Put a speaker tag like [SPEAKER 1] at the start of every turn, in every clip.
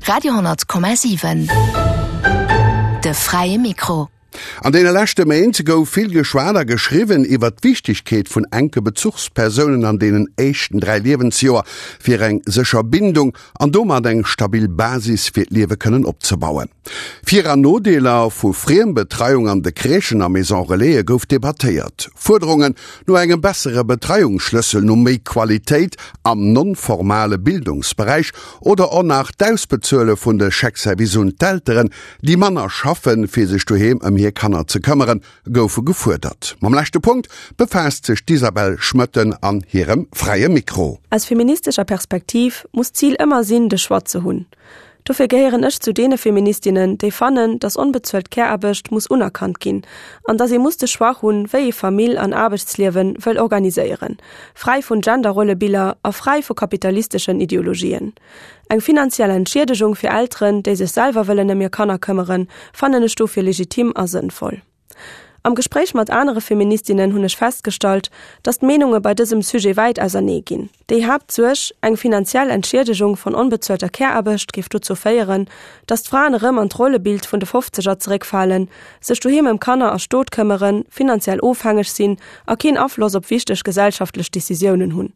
[SPEAKER 1] Radio,7 De fräie Mikro.
[SPEAKER 2] An deene leschte Méint gouf vill geschwat a geschriwwen iwwer d'Wichtegkeet vun enke Bezuchspersounen an deenen éischten 3 Liewensjoer, fir eng sécher Bindung an domat eng stabil Basis fir d'Liewe kënnen opzebauen. Vir an Nodeeler vu Friembetreiung an de Crèchen a Maison Relaise gouf debattéiert. Fuerderungen no engem bessere Betreiungsschlëssel, no méi Qualitéit am non-formale Bildungsberäich oder och nach d'Ausbezuele vun de Chèque-service un d'Elteren, déi manner schaffen, fir sech doheem ëm hir Kanner ze këmmeren, goufe gefuerdert. Mam leschte Punkt befaasst sech d'Isabelle Schmoetten an hirem Fräie Mikro.
[SPEAKER 3] Aus feministescher Perspektiv muss d'Zil ëmmer sinn, de Choix ze hunn. Dofir gehéieren ech zu deene Feministinnen, déi fannen, dass onbezuelt Care-Aarbecht muss unerkannt ginn an dass ee muss de Choix hunn, wéi ee Famill an Aarbechtsliewe wëll organiséieren, fräi vun Genderrollebiller a fräi vu kapitalisteschen Ideologien. Eng finanziell Entschiedegung fir Elteren, déi sech selwer wëllen ëm hir Kanner këmmeren, fannen ech dofir legitim a sënnvoll. Am Gespréich mat anere Feministinnen hunn ech festgestallt, dass d'Meenunge bei dësem Sujet wäit ausernee ginn. Déi Haaptsuerg, eng finanziell Entschiedegung von onbezuelter Care-Aarbecht géif dozou féieren, dass d'Fraen erëm an d'Rollebild vun de Fofzeger zeréckfalen, sech doheem ëm Kanner a Stot këmmeren, finanziell ofhängeg sinn a keen Afloss op wichteg gesellschaftlech Decisiounen hunn,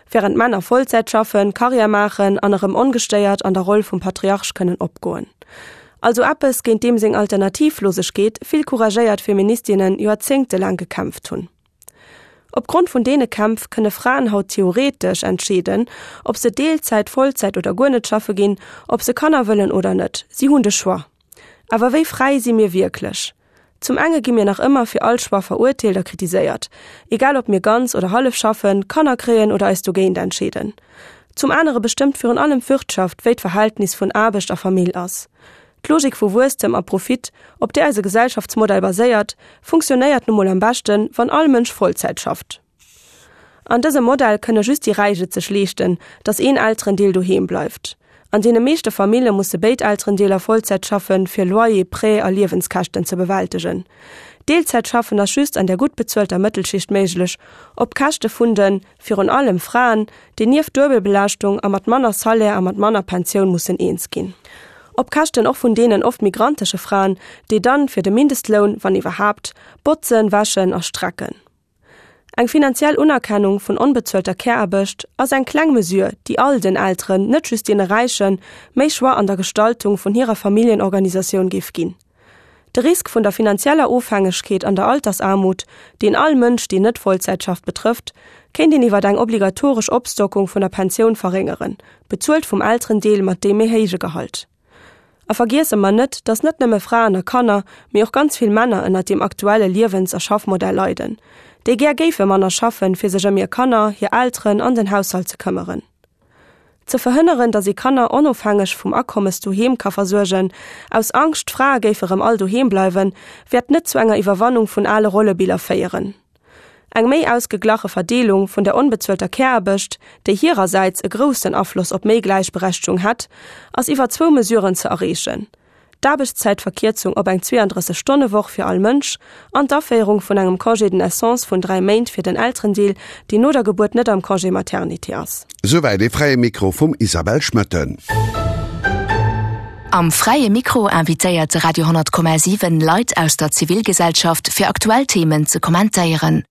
[SPEAKER 3] wärend d'Männer Vollzäit schaffen, Karriär maachen an erëm ongestéiert an der Roll vum Patriarch kënnen opgoen. Also eppes, géint deem seng Alternativlosegkeet vill couragéiert Feministinnen joerzéngtelaang gekämpft hunn. Op Grond vun deene Kämpf kënne Fraen haut theoretesch entscheeden, ob se Deelzäit, Vollzäit oder guer net schaffe ginn, ob se Kanner wëllen oder net. Si hunn de Choix. Awer wéi fräi si mir wierklech? Zum enge gi mir nach ëmmer fir all Choix verurteelt a kritiséiert, egal ob mir ganz oder hallef schaffen, Kanner kréien oder eis dogéint entscheeden. Zum anere bestëmmt virun allem d'Wirtschaft, wéi d'Verhältnis vun Aarbecht a Famill ass. D'Logik vu Wuesstem a Profit, op där eise Gesellschaftsmodell baséiert, funktionéiert nu mol am beschten, wann all Mënsch Vollzäit schafft. An dësem Modell kënne just déi Räich et sech leeschten, datt een Elterendeel doheem bleift. An deene meeschte Famille musse béid Elterendeeler Vollzäit schaffen, fir Loyer, Prêt a Liewenskäschten ze bewältegen. Deelzäitschaffen ass just an der gutt bezuelter Mëttelschicht méiglech, op Käschte vun den, virun allem, Fraen, déi nieft Duebelbelaaschtung a mat manner Salaire a mat manner Pensioun mussen eens ginn. Op Käschten och vun deenen oft migrantesche Fraen, déi dann fir de Mindestloun, wann iwwerhaapt, botzen, wäschen a strecken. Eng finanziell Unerkennung vun onbezuelter Care-Aarbecht ass eng kleng Mesure, déi all den Elteren, net just deene Räichen, méi Choix an der Gestaltung vun hirer Familljenorganisatioun géif ginn. De Risk vun der finanzieller Ofhängegkeet an der Altersaarmut, deen all Mënsch, deen net Vollzäit schafft, betrëfft, kéint een iwwer eng obligatoresch Opstockung vun der Pensioun verréngeren, bezuelt vum Elterendeel mat deem méi héije Gehalt. A vergiesse mer net, dass net nëmme Fraen a Kanner, mee och ganz vill Männer ënnert deem aktuelle Liewens a Schaffmodell leiden, déi gär géife manner schaffen, fir sech ëm hir Kanner, hir Elteren an den Haushalt ze këmmeren. Ze verhënneren, dass ee Kanner onofhängeg vum Akommes doheem ka versuergen, aus Angscht, d'Frae géife rëm all doheem bleiwen, wäert net zu enger Iwwerwannung vun ale Rollebiller féieren. Eng méi ausgeglache Verdeelung vun der onbezuelter Care-Aarbecht, déi hirersäits e groussen Afloss op méi Gläichberechtegung hätt, ass iwwer zwou Mesuren ze erreechen, d'Aarbechtszäitverkierzung op eng 32 Stonne-Woch fir all Mënsch an d'Aféierung vun engem Congé de naissance vun 3 Méint fir den Elterendeel, deen no der Gebuert net am Congé maternité ass.
[SPEAKER 2] Souwäit ee Fräie Mikro vum Isabelle Schmoetten.
[SPEAKER 1] Am Fräie Mikro invitéiert de Radio 10,7 Leit aus der Zivilgesellschaft fir aktuell Themen ze kommentéieren.